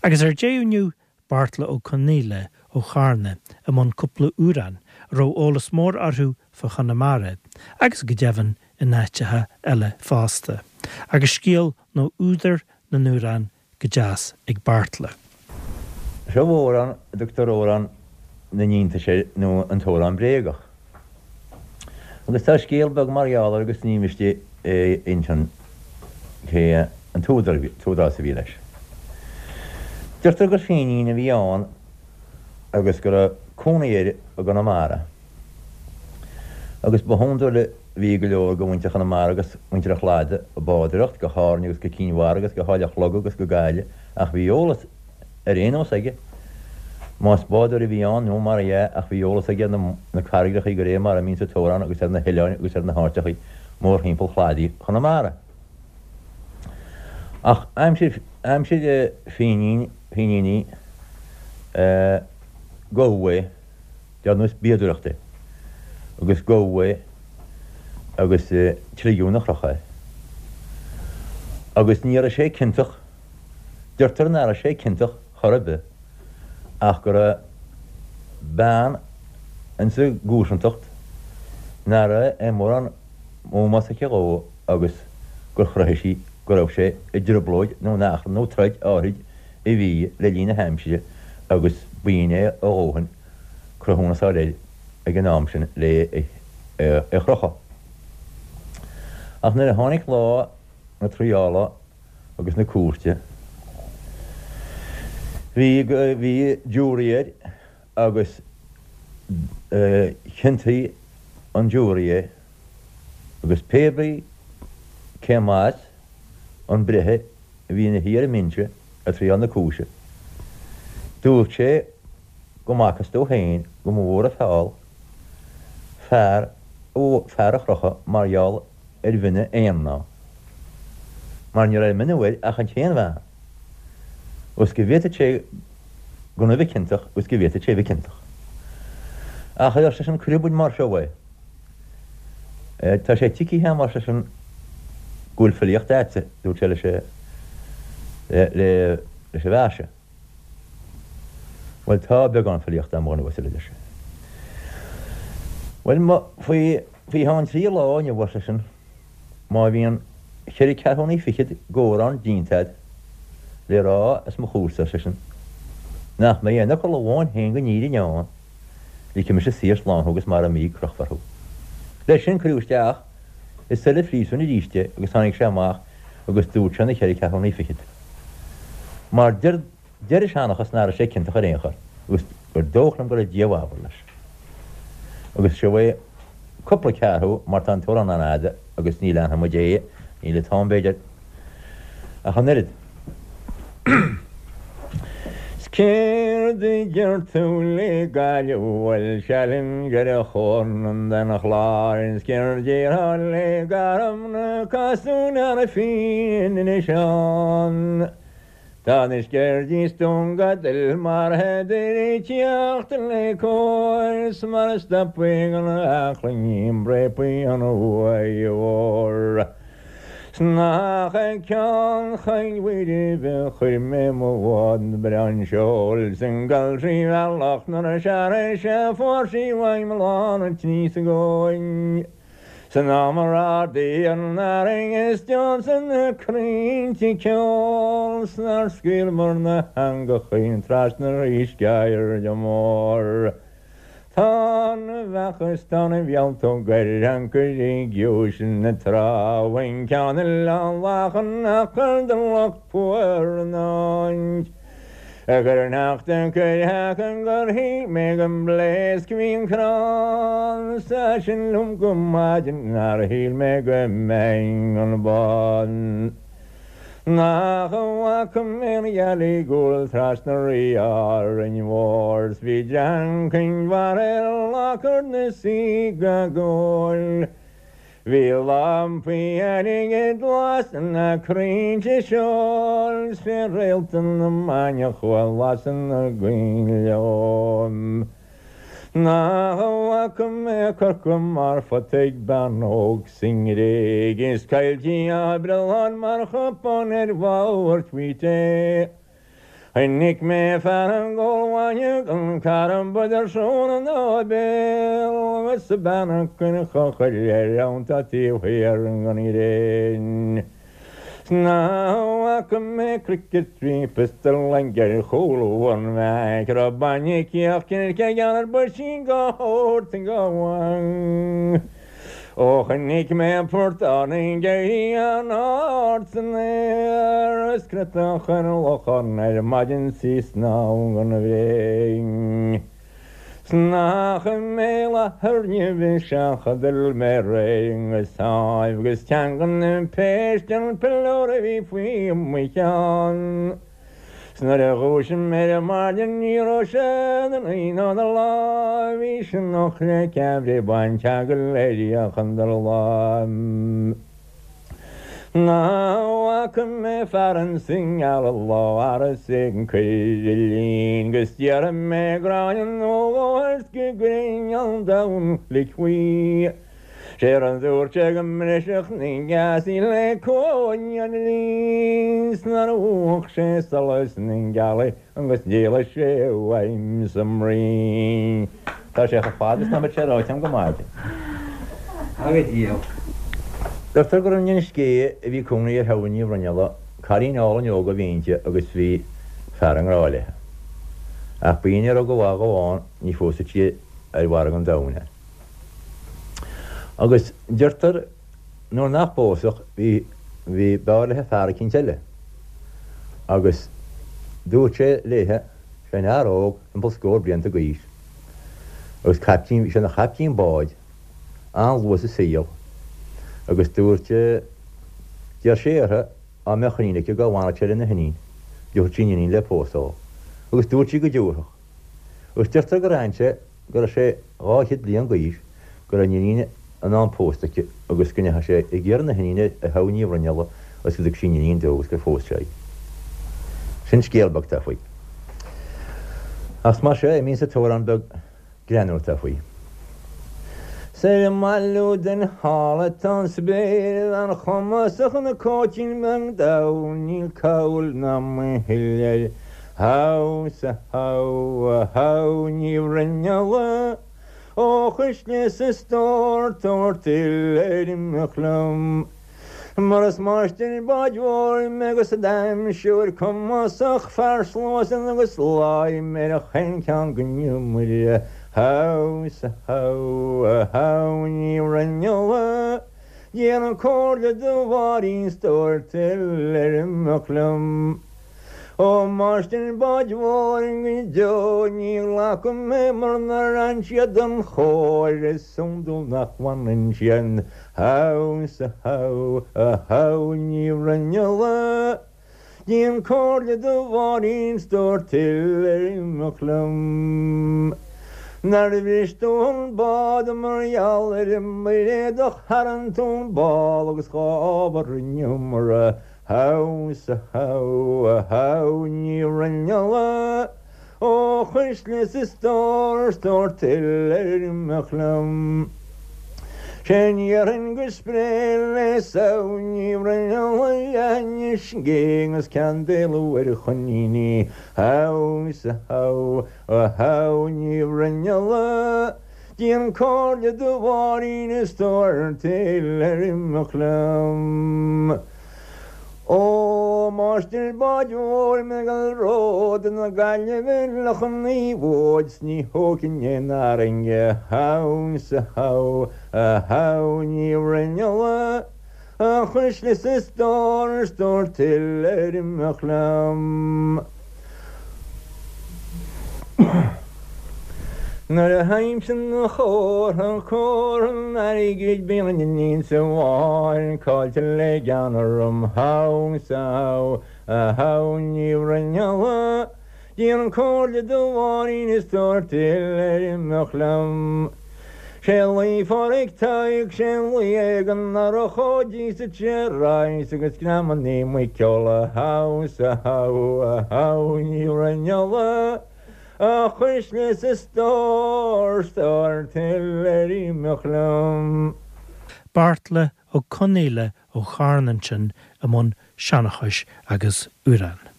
Agus ar deireadh inniu, Beartla Ó Conaola ó Charna i mbun cúpla amhrán a raibh eolas mór orthu fá Chonamara agus go deimhin in áiteacha eile fosta. Agus scéal nó údar na n-amhrán go deas ag Beartla. Seo amhrán a dtugtar Amhrán na nIontas air nó an tAmhrán Bréagach. Agus tá scéal beag mar gheall air agus ní miste é a insint cé an t-údarás a bhí leis. Deirtear gur Fínín a bhí ann agus go raibh cónaí air i gConamara. Agus ba hiondúil a bhí go leor de mhuintir Chonamara agus muintir an Chladaigh ag bádóireacht go hÁrainn agus go Cinn Mhara agus go hÁill an Chloga agus go Gaillimh ach bhí eolas ar aon nós aige, más bádóir a bhí ann nó mar dhea, ach bhí eolas aige ar na carraigreachaí go réir mar a mbíonn sa t-amhrán agus ar na hoileáin agus ar na háiteachaí mórthimpeall chladaí Chonamara. Ach aimsir, aimsir Fínín, Fíníní, gabhadh é, dar nós bíodóireachta é, agus gabhadh é agus tligeadh 'na chrochadh é. Agus ní raibh sé ciontach. Deirtear nach raibh sé ciontach chor ar bith ach go raibh bean insa gcomharsantacht nach raibh aon mórán ómós aici dhó agus gur chruthaigh sí go raibh sé i dtrioblóid nó in achrann nó troid áithrid a bhí le linn na haimsire agus b'in é a dhóthain cruthúnas a fháil air ag an am sin le é a chrochadh. Ach nuair a tháinig lá na triála agus na cúirte. Bhí, bhí jury air agus chiontaigh an jury é agus pé brí cé mb'as an breitheamh a bhí ina shuí ar an mbinse ag triáil na cúise, dúirt sé go mb'fhacthas dó féin go mba mhór an feall fear, fear a chrochadh mar gheall ar mhionadh aon mhná, mar ní raibh mionadh air ach an t-aon bhean, agus go bhféadfadh sé gan a bheith ciontach agus go bhféadfadh sé a bheith ciontach. Ach ar seisean, cuirfidh muid mar seo é. Tá sé tuigthe agam, ar seisean, go bhfuil filíocht a'dsa, dúirt sé leis leis an bhfear seo. Bhuel, tá beagán filíochta a'm, a dhuine uasail, a deir sé. Bhuel, faoi cheann trí lá inniu, ar seisean, má bhíonn cheithre ceathrúnaí fichead d'amhrán déanta a'd le rá os mo chomhairsa, ar seisean, nach mbeidh aon fhocal amháin féin den fhírinne ann, ligfidh mise saor slán thú agus mara mbí, crochfar thú. Leis sin cuireadh isteach i seile phríosúin arís é agus tháinig sé amach agus dúirt sé na cheithre ceathrúnaí fichead. Mar deir deir an seanchas nach raibh sé ciontach ar aon chor agus gur dóich liom go raibh Dia i bhfabhar leis. Agus seo é cúpla ceathrú mar tá an t-amhrán an-fhada agus ní leanfaidh muid é, níl an t-am b'fhéidir ach an oiread. 'S céard a deir tú le Gaillimh bhuel seal in gceithre chorna den chlár 'S céard déarfá le Garmna Cosúil Fíon Inis Oirr Tá na Sceirdí 's Dún Gadail mar thádar ag teacht le cóir 's mar a stopfaidh an aclainní bréapaí an uaigh mhór. 'S nach ag Ceann Choill Mhuire a chuir mé mo bhád breá an seoil 's an gcailltrí bhealach nuair a searraigh sé fuair sí uaim lán an tslí sa gcóin. San am a ardaigh an fharraige is d'ionsaigh na crainnte ceol 's nár scaoileamar na heangachaí trasna ar sceirde mór. Tá na bheacha is tá na mhealltóg ar ancaire i gciumhais na trá bhain ceann Oileán Lachan achar do lucht fuar an áit. A chuir an eachtra cuir gur shíl mé go mbléasc bhí an crann sa sin liom go maidin nár shíl mé go mbeinn an bán. Nach bhfaca mé an ghealaigh ag gabháil trasna Rí Árainn Mhór 's bhí dream Chinn Mhara ar lácar na sí go gcóil. Bhí lampaí airgid lasadh na crainnte seoil 's fé réalta na maidhmeach a lasadh na gcoinnle. Nach bhfaca mé Corcaigh mar phota ag bean óg sa nGréig is coilltí á breallán mar chupán ar bharr tvuít é. Chonaic mé fear ag ól bainne gan carbad ar srón ina bhéal agus a bean ag cur cochaill air ann tá taobh thiar den ghréin. 'S nach bhfaca mé cnoic 3 piostal ag ar chúl an mheaic raibh bainne cíoch circe geal ar buisín go thabhairt go bhfang. Ó chonaic mé portán ag éirí an-ard san aer is cneadach ar lochán ar maidin 's í ag snámh gan bhréin. 'S nach i mbéal Átha Nimhe seachadadh mé réidh go sáimh agus teanga na péiste an piliúr a bhí faoi mo cheann. 'S nuair a dhúisigh mé ar maidin ní raibh sé ina luí ná ina láimh, bhí sé nocht le ceathraí baint go léir chun do láimh. Nach bhfaca mé fear insa ngealach lá agus é ag cur a lín 'gus déarfaidh mé gráinne nó dhó air 's go gcuirfinn an domhan fhliuch faoi. Sé rud a dúirt sé go mbrisfeadh na geasaí le cóin an lín 's nár mhúch sé solas na gealaí agus d'éalaigh sé uaim sa mbruíon. Tá sé chomh fada is ná beadh sé ráite agam go maidin. Go díreach. Deirtear gur in Inis Géidhe a bhí cónaí ar Shamhain Ní Bhruinnealla, cailín álainn óg a bhí inti agus bhí fear i ngrá léi. Ach ba í ní raibh go mhaith dhó ann, ní phósfadh sí ar mhargadh an domhain é. Agus deirtear nuair nach bpósfadh bhí bhí b'fhearr léithe fear eicínt eile. Agus dúirt sé léithe, seanfhear óg timpeall scór blianta d'aois, agus caiptín, bhí sé ina chaiptín báid an-luath sa saol, agus dúirt, d'iarr sé uirthi dá mbeadh iníon aici go bhfanfadh sé lena hiníon, dtabharfadh sí an iníon le pósadh dó. Agus dúirt sí go dtabharfadh. Agus deirtear gur fhan sé go raibh sé 200 bliain d'aois, go raibh an iníon in am pósta aici agus go ndeachaigh sé ag iarraidh na hiníne ar Shamhain Ní Bhruinnealla agus go dtug sí an iníon dó agus gur phós sé í. Sin scéal beag atá faoi. Ach mar seo imíonn sa t-amhrán beag greannmhar atá faoi. 'S ar an mbailiú den shála atá an spéir, a bhean chumasach ina cóitín beag dall, níl cabhail ná mhoill air. How 's a how a how Ní Bhruinnealla ó chuisle 's a stór tabhair tuilleadh ar imeacht liom mar is máistir báid mhóir mé agus d'aimseoir cumasach fear sluasaid agus láim ar chaon cheann den iomaire How 's a how a how Ní Bhruinnealla déan comhairle do Mháirín 's tabhair tuilleadh ar imeacht liom. Ó máistir báid mhóir go deo ní ghlacfaidh mé mura n-oireann siad don chóir is iondúil nach bhfanann siad How 's a how a how Ní Bhruinnealla déan comhairle do Mháirín 's tabhair tuilleadh ar imeacht liom Nár bhris tú an bád mar gheall ar an mBairéadach tharraing tú an ball agus dhá ábhar an iomaire How 's a how a how Ní Bhruinnealla ó chuisle 's a stór 's tabhair tuilleadh ar imeacht liom. Sé ndéarfainn go spré le Samhain Ní Bhruinnealla leathinis gé agus ceann d'éalú ar choiníní How 's a how a how Ní Bhruinnealla Déan comhairle do Mháirín is tabhair tuilleadh ar imeacht liom. Ó, máistir báid mhóir mé ag dul ród na Gaillimhe Loch an Naomhóid 's ní thógfainn aon arrainge How 's a how a how Ní Bhruinnealla a chuisle 's a stór 's tabhair tuilleadh ar imeacht liom. Nuair a théimse 'na chomhartha, comhartha an airgid, bíonn an iníon sa bháin caillte le gean orm. How 's a how a how Ní Bhruinnealla, déan comhairle do Mháirín is tabhair tuilleadh ar imeacht liom. Sé luí Pháraic Thaidhg, sé luí ag an urchóidí sa tSearaidh agus greamannaí muiceola How 's a how a how Ní Bhruinnealla, a chuisle 's a stór 's tabhair tuilleadh ar imeacht liom. Beartla Ó Conaola ó Charna ansin i mbun seanchais agus amhrán.